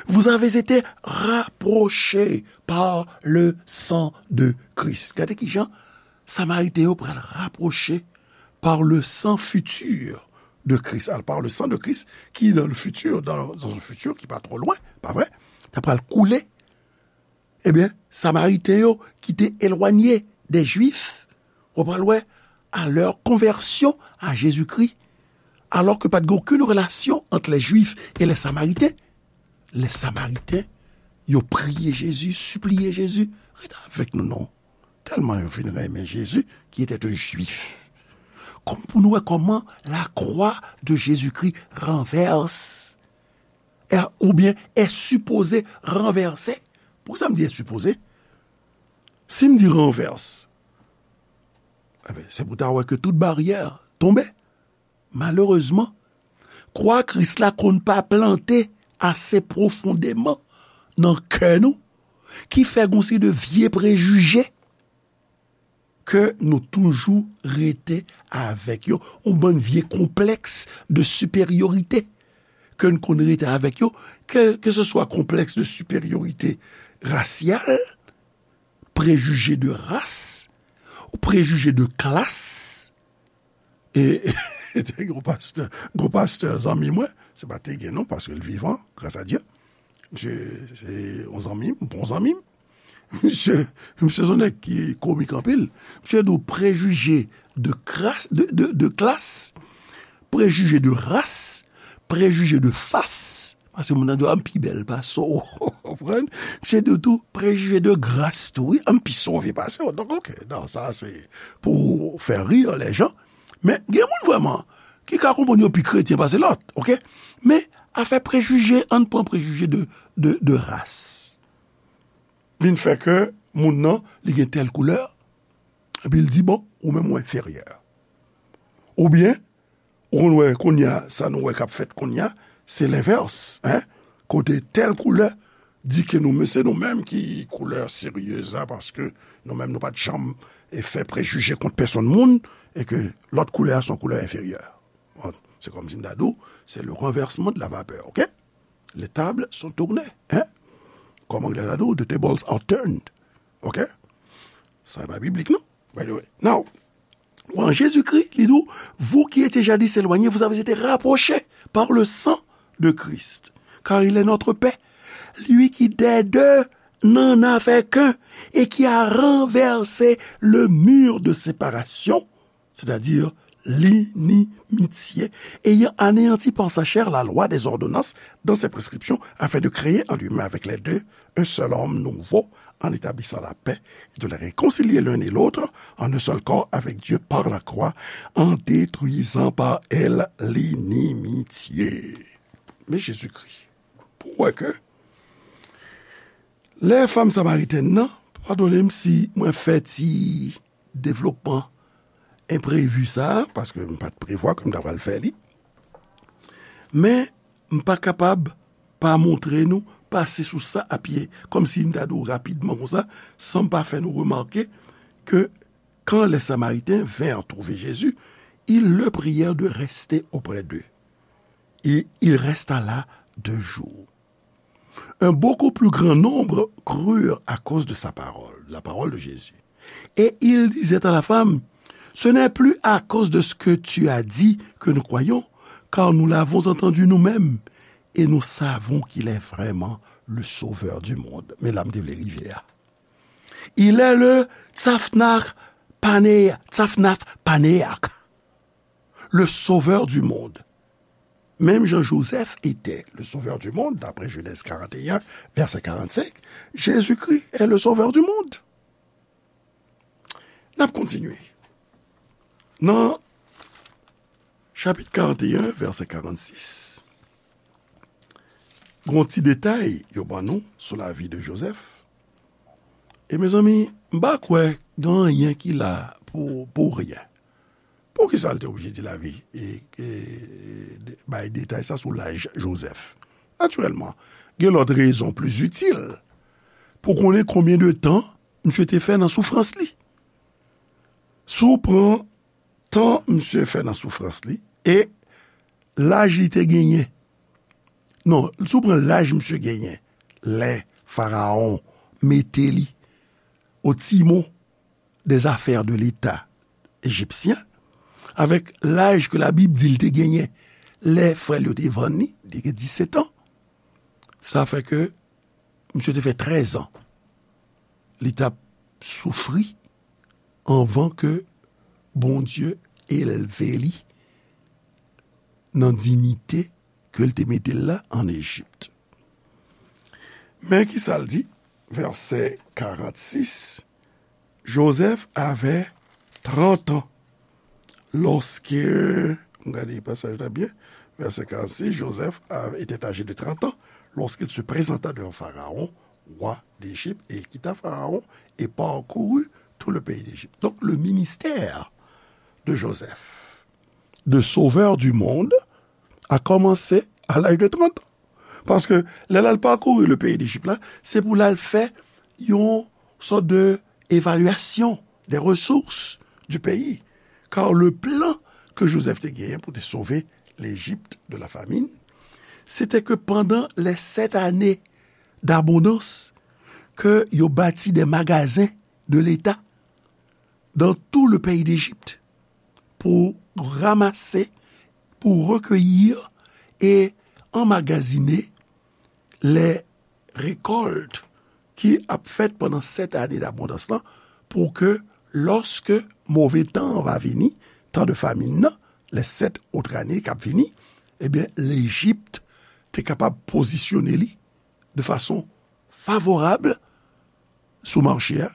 vous avez été rapprochés par le sang de Christ. Gade kijan Samariten yo pral rapwoche par le sang futur de Christ. Alors, par le sang de Christ, qui dans le futur, dans, dans un futur qui pas trop loin, pa vre, ta pral koule. Ebyen, Samariten yo ki te elwanye de Jwif, ou pral wè, à leur conversion à Jésus-Christ, alors que pa t gen okenn relasyon ant les Juifs et les Samaritains, les Samaritains, yo priye Jezi, sipliye Jezi, ret avèk nou non. Tèlman yo fin renmen Jezi, qui était un Juif. Kòm pou nou wè kòman la croix de Jésus-Christ renverse, est, oubyen est supposé renverser. Poukisa m di est supposé? Si m di renverse, enben, se pou ta wè ke tout baryè tonbe. Malerezman, kwa Kris la konn pa plante ase pwofondeman nan kè nou, ki fè gon seri de vye prejije ke nou toujou rete avèk yo, yon bann vye konplèks de siperyorite ke n konn rete avèk yo, ke, ke se swa konplèks de siperyorite rasyal, prejije de ras, ou prejije de klas. E te gen yon pastè, yon pastè zanmi mwen, se pa te gen non, paske l vivan, gras a Dye. Misye se yon zanmi m, bon zanmi m. Misye, misye se yon nèg ki komik anpil. Misye di w prejije de kras, de, de, de klas, prejije de ras, prejije de fas. Paske moun nan di w, "A, m pi bèl pase w." Ou konprann? Misye di w tou, prejije de gras tou, wi, "A, m pi sove pase w." Donk, oke, non, sa se pou fè rir lè jan. Men, gen moun vrèman ki ka konprann yo pi kretyen pase lòt, oke? Men, afè prejije, ann pran prejije de, de, de ras. Vin fè ke moun nan, li gen tèl koulè, epi l di, "Bon, ou menm ou enferyè." Oubyen, ou konn wè kounye a, sa nou wè k ap fèt kounye a, se lenvès, en. Kote tèl koulè di ke nou, men se nou menm ki koulè seryez la, paske nou menm nou pa t janm, e, fè prejije kont pèsonn moun, e ke lòt koulè a se yon koulè enferyè. Bon, se kòmsi m ta di w, c'est le renversement de la vapeur, oke? Les tables sont tournées, en? Kòm anglè ta di w, the tables are turned, oke? Sa e pa biblik, non? By the way. Now, en Jésus-Christ, li di w, vous qui étiez jadis éloignés, vous avez été rapprochés par le sang de Christ, car il est notre paix. Lui qui des deux n'en a fait qu'un et qui a renversé le mur de séparation, c'est-à-dire l'inimitié, ayant anéanti par sa chair la loi des ordonnances dans ses prescriptions, afin de créer en lui-même avec les deux un seul homme nouveau, en établissant la paix, et de les réconcilier l'un et l'autre en un seul corps avec Dieu par la croix, en détruisant par elle l'inimitié. Men Jezikri, pou w wè ke lè fanm samaritèn nan, padone m si mwen fè ti devlopman enprevi sa a, paske m pa t prevwa ke m ta pral fè li. Men, m pa kapab pa montre nou, pase sou sa a pye, kòmsi m ta di w rapidman konsa, san m pa fè nou remake ke quand les Samaritains vinrent trouver Jésus, ils le prièrent de rester auprès d'eux. Et il resta là deux jours. Un beaucoup plus grand nombre crurent à cause de sa parole, la parole de Jésus. Et ils disaient à la femme, ce n'est plus à cause de ce que tu as dit que nous croyons, car nous l'avons entendu nous-mêmes, et nous savons qu'il est vraiment le Sauveur du monde. Men la m te vle rive a. Il est le Tzafnach Paneach, Tzafnach Paneach, le Sauveur du monde. Même Jean Joseph était le Sauveur du monde, d'après Genèse quarante et un, verset quarante-cinq. Jésus-Christ est le Sauveur du monde. N ap kontinye. Nan chapit karant e en, vèsè karannsis, gon ti detay yo ban nou sou lavi de Jozèf. E mezanmi, m pa kwè gen anyen ki la pou, pou ryen. Poukisa l te oblije di lavi, e, e, de, bay detay sa sou laj Jozèf? Natirèlman, gen lòt rezon pli itil pou konnen konbyen de tan misye te fè nan soufrans li. Si w pran tan misye fè nan soufrans li e laj li te genyen, non, si w pran laj misye genyen lè Farawon mete li au timon des affaires de l'État égyptien, avèk laj ke Labib di l te genyen lè frè l yo te vann li, li te gen disèt an. Sa fè ke misye te fè trèz an li t ap soufri anvan ke Bondye elve li nan diyite ke l te mete l la ann Ejip. Men ki sa l di, vèsè karannsis, Joseph avait trente ans lorsque, m gade pasaj la byen, vèsè karannsis, Joseph a, était âgé de trente ans lorsqu'il se présenta devant Pharaon, roi d'Égypte, et il quitta Pharaon et parcourut tout le pays d'Égypte. Donc, le ministère de Joseph, de sauveur du monde, a commencé à l'âge de trente ans. Paske lè l al pakouri le peyi Lejip la, se pou l al fè yon sòt de évaluation des ressources du pays. Car le plan que Joseph te genyen pou te sove Lejip de la famine, C'était que pendant les sept années d'abondance, que yo bâtit des magasins de l'État dans tout le pays d'Égypte pour ramasser, pour recueillir et emmagasiner les récoltes ki ap fèt pandan sèt ane dabondans lan, pou ke lòske move tan an va vini, tan de famin nan, les sept autres années k ap vini, ebyen, Lejip te kapab pozisyone li de fason favorab sou mache a,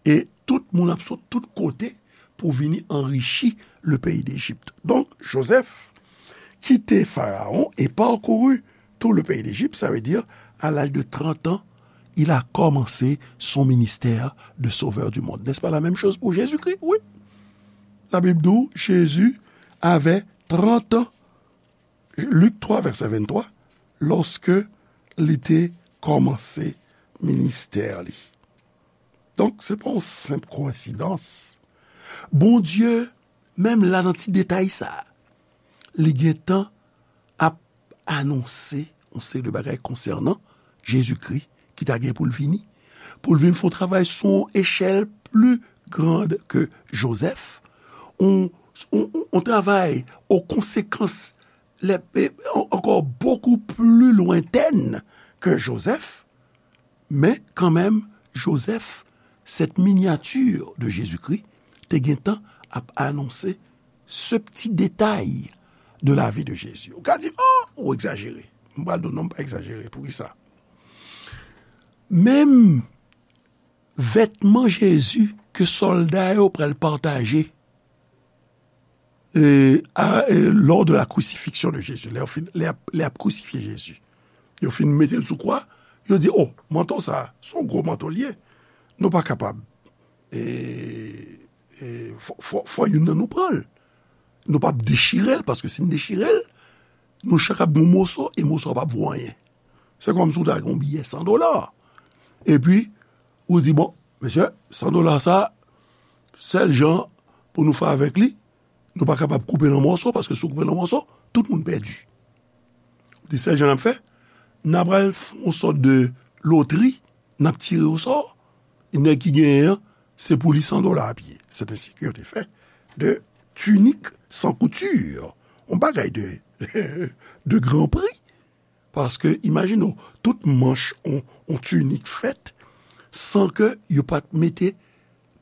e tout moun ap sot tout kote pou vini anrichi le pays d'Égypte. Donc, Joseph quitter Pharaon et parcourut tout le pays d'Égypte, ça veut dire, à l'âge de trente ans, il a commencé son ministère de sauveur du monde. N'est-ce pas la même chose pour Jésus-Christ? Oui. La Bible dit, Jésus avait trente ans, Luc trois, verset vingt-trois, lorsque li te kòmanse ministè li. Donk, se pa yon senp koyensidans. Bondye, menm la nan ti detay sa a, li gentan ap anonse yon seri de bagay konsènan Jezikri ki ta gen pou l vini, pou l vin fè yon travay sou yon echèl pli grand ke Jozèf, yon, yon, yon travay o konsekans lè, e, an-, ankò bokou pli lwentèn ke Jozèf, men kanmenm, Jozèf, cette miniature de Jésus-Christ, te gentan ap anonse ce petit détail de la vie de Jésus. Ou ka di, "Oh, ou egzajere." M pral di w, "Non, m pa egzajere." Poukisa? Menm vètman Jezi ke sòlda yo pral pataje, e, a, e, lors de la crucifixion de Jésus, lè yo fin, lè y ap, lè y ap krisifye Jezi. Yo fin mete l sou kwa, yo di, "Oh, manto sa, se yon gwo manto l ye. Nou pa kapab, e, e, fò, fò, fò youn nan nou pran l. Nou p ap dechire l, paske si n dechire l, nou chak ap gen yon moso, e moso a p ap vo anyen." Se kòmsi w ta gen yon biyè san dola. Epi, ou di, "Bon, mesye, san dola sa, sèl jan pou nou fè avèk li, nou pa kapab koupe l an mòso, paske si w koupe l an mòso, tout moun pèdi." Ou di, "Sèl jan n ap fè, n a pral fè yon sòt de lotri, n ap tire osò, e nèg ki genyen an, se pou li san dola ap ye." C'est ainsi que yo te fè de tunik san kouti, yon bagay de, de gran pri. Paske, imajine w, tout manch yon, yon tinik fèt san ke yo pa t mete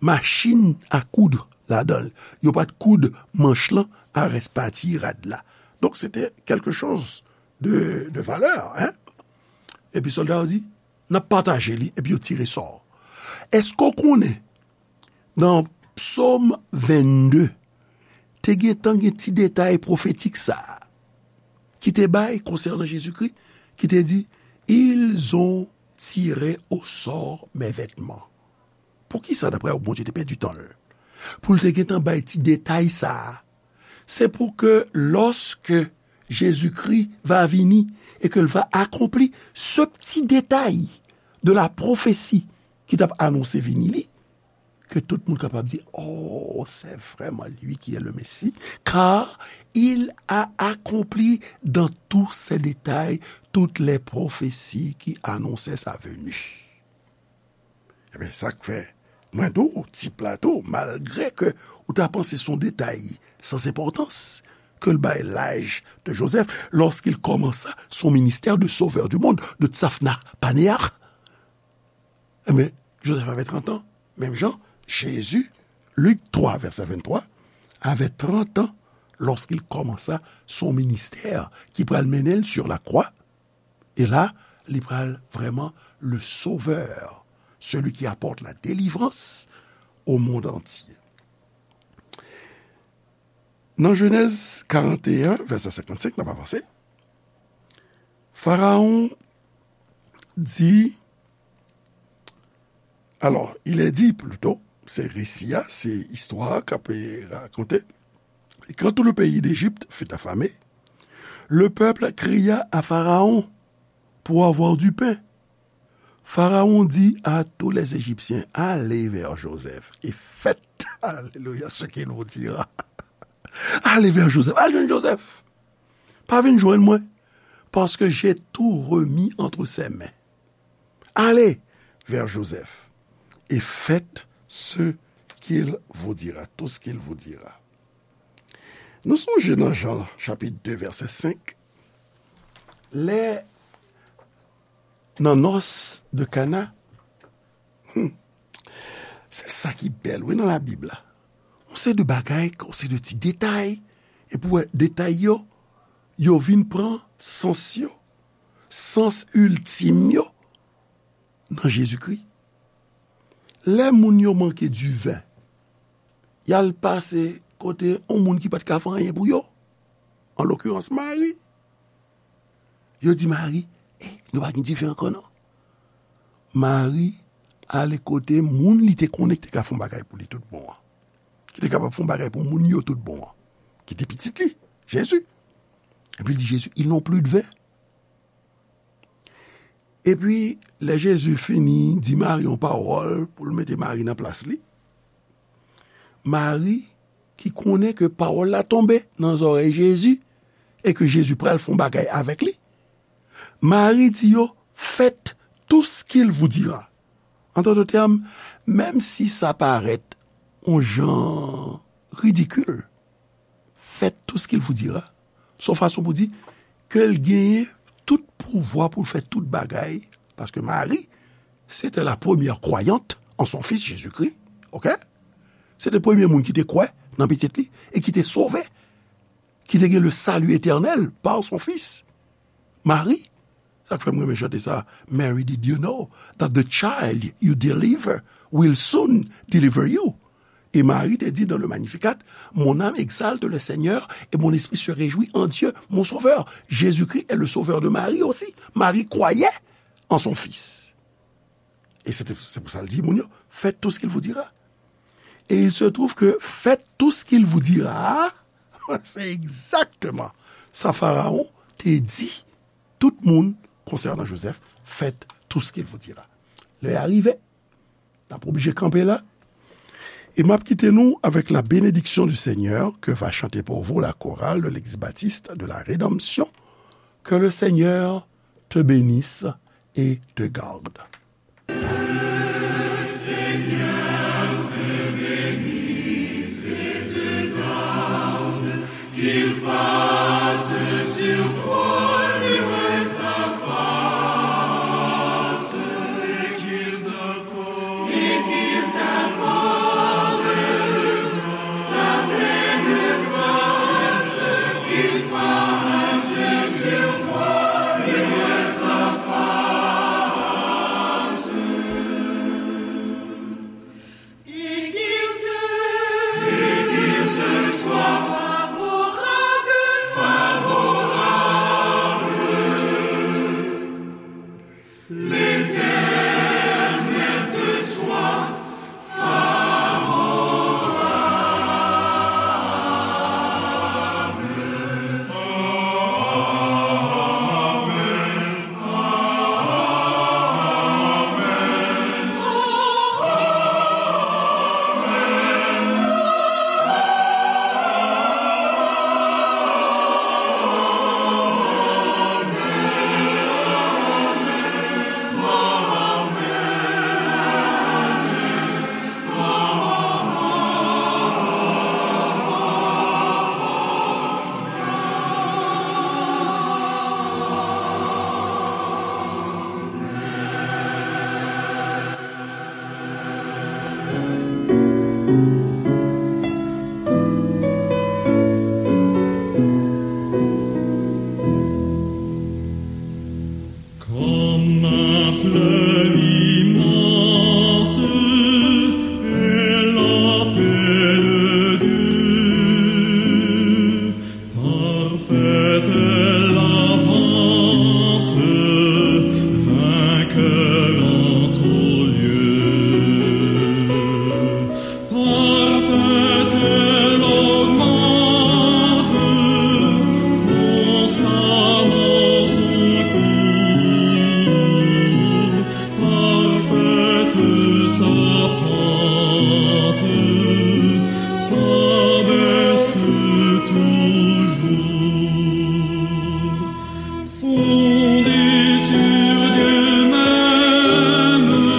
machin a koud ladan l. Yo pa t koud manch lan a rès pati rad la. Donk, se te quelque chose de, de valeur, hein? Epi sòlda yo di, "N ap pataje li," epi yo tire sò. Èske w konnen, nan Psòm vennde, te gentan gen ti detay pwofetik sa a, ki te bay konsènan Jezikri, ki te di, "Ils ont tiré au sort mes vêtements." Poukisa, daprè w, Bondye te pèdi tan l pou l te gentan bay ti detay sa a? Se pou ke, lorsque Jésus-Christ va venir et que l va accomplir ce petit détail de la prophétie ki t ap anonse vini li, ke tout moun kapab di, "Oh, c'est vraiment lui qui est le Messie, car il a accompli dans tous ses détails toutes les prophéties qui annonçaient sa venue." Ebyen, sa k fè mwen di w, ti plato, malgre ke ou ta panse se yon detay sans importance, que l bay l'âge de Joseph, lorsqu'il commença son ministère de sauveur du monde, de Tsafna Panéa. Ebyen, Joseph avait trente ans. Menm jan, Jésus, Luc trois, verset vingt-trois, avait trente ans lorsqu'il commença son ministère, ki pral mennen l sur la croix. E la, li pral vrèman le Sauveur, celui qui apporte la délivrance au monde entier. Nan Jenèz karant e en, vèsè senkannsenk, n ap avanse. Pharaon dit, alors, il est dit plutôt, se resi a, se istwa a k ap rakonte. Et quand tout le pays d'Égypte fut affamé, le peuple cria à Pharaon pour avoir du pain. Pharaon dit à tous les Égyptiens, allez vers Joseph et faites, alléluia, ce qu'il vous dira. Allez vers Joseph, al jwenn Joseph. Pa vin jwenn mwen. parce que j'ai tout remis entre ses mains. Allez vers Joseph et faites ce qu'il vous dira, tout ce qu'il vous dira. Nou sonje nan Jan chapit de vèsè senk, lè nan nòs de Kana, hmm, se sa ki bèl, wi, nan Labib la. On se de bagay, on se de ti detay, epi w wè detay yo, yo vin pran sans yo, sans iltim yo, nan Jezikri. Lè moun yo manke diven, y al pase kote yon moun ki pa t ka fè anyen pou yo, an lokirans Mari. Yo di Mari, "Eh, nou pa gen diven ankò non." Mari ale kote moun li te konnen ki te ka fè yon bagay pou li tout bon an, ki te kapab fè yon bagay pou moun yo tout bon an, ki te pitit li, Jezi. Epi l di Jezi, "Ils n'ont plus de vin." Epi, lè Jezi fini di Mari yon pawòl pou l mete Mari nan plas li, Mari, ki konnen ke pawòl la tonbe nan zòrèy Jezi e ke Jezi pral fè yon bagay avèk li, Mari di yo, "Faites tout ce qu'il vous dira." En d'autres termes, menm si sa parèt yon jan ridikil, faites tout ce qu'il vous dira. Se yon fason pou di ke l genyen tout pouvwa pou l fè tout bagay, paske Mari, c'était la première croyante en son fils Jésus-Christ, ok? Se te premye moun ki te kwè nan pitit li e ki te sove, ki te gen le salut éternel par son fils. Mari, sa k fè m renmen chante sa, "Mary, did you know that the child you deliver will soon deliver you?" Et Marie te dit dans le Magnificat, "Mon âme exalte le Seigneur et mon esprit se réjouit en Dieu, mon Sauveur." Jésus-Christ est le Sauveur de Marie aussi. Marie croyait en son fils. Et c'est c'est pour ça qu'il dit, moun yo, "Faites tout ce qu'il vous dira." Et il se trouve que "Faites tout ce qu'il vous dira", c'est exactement ça Pharaon te dit tout moun concernant Joseph, "Faites tout ce qu'il vous dira." Lè a rive, n ap oblije kanpe la. E m ap kite nou avec la bénédiction du Seigneur que va chanter pour vous la chorale de l'Église baptiste de la Rédemption. Que le Seigneur te bénisse et te garde.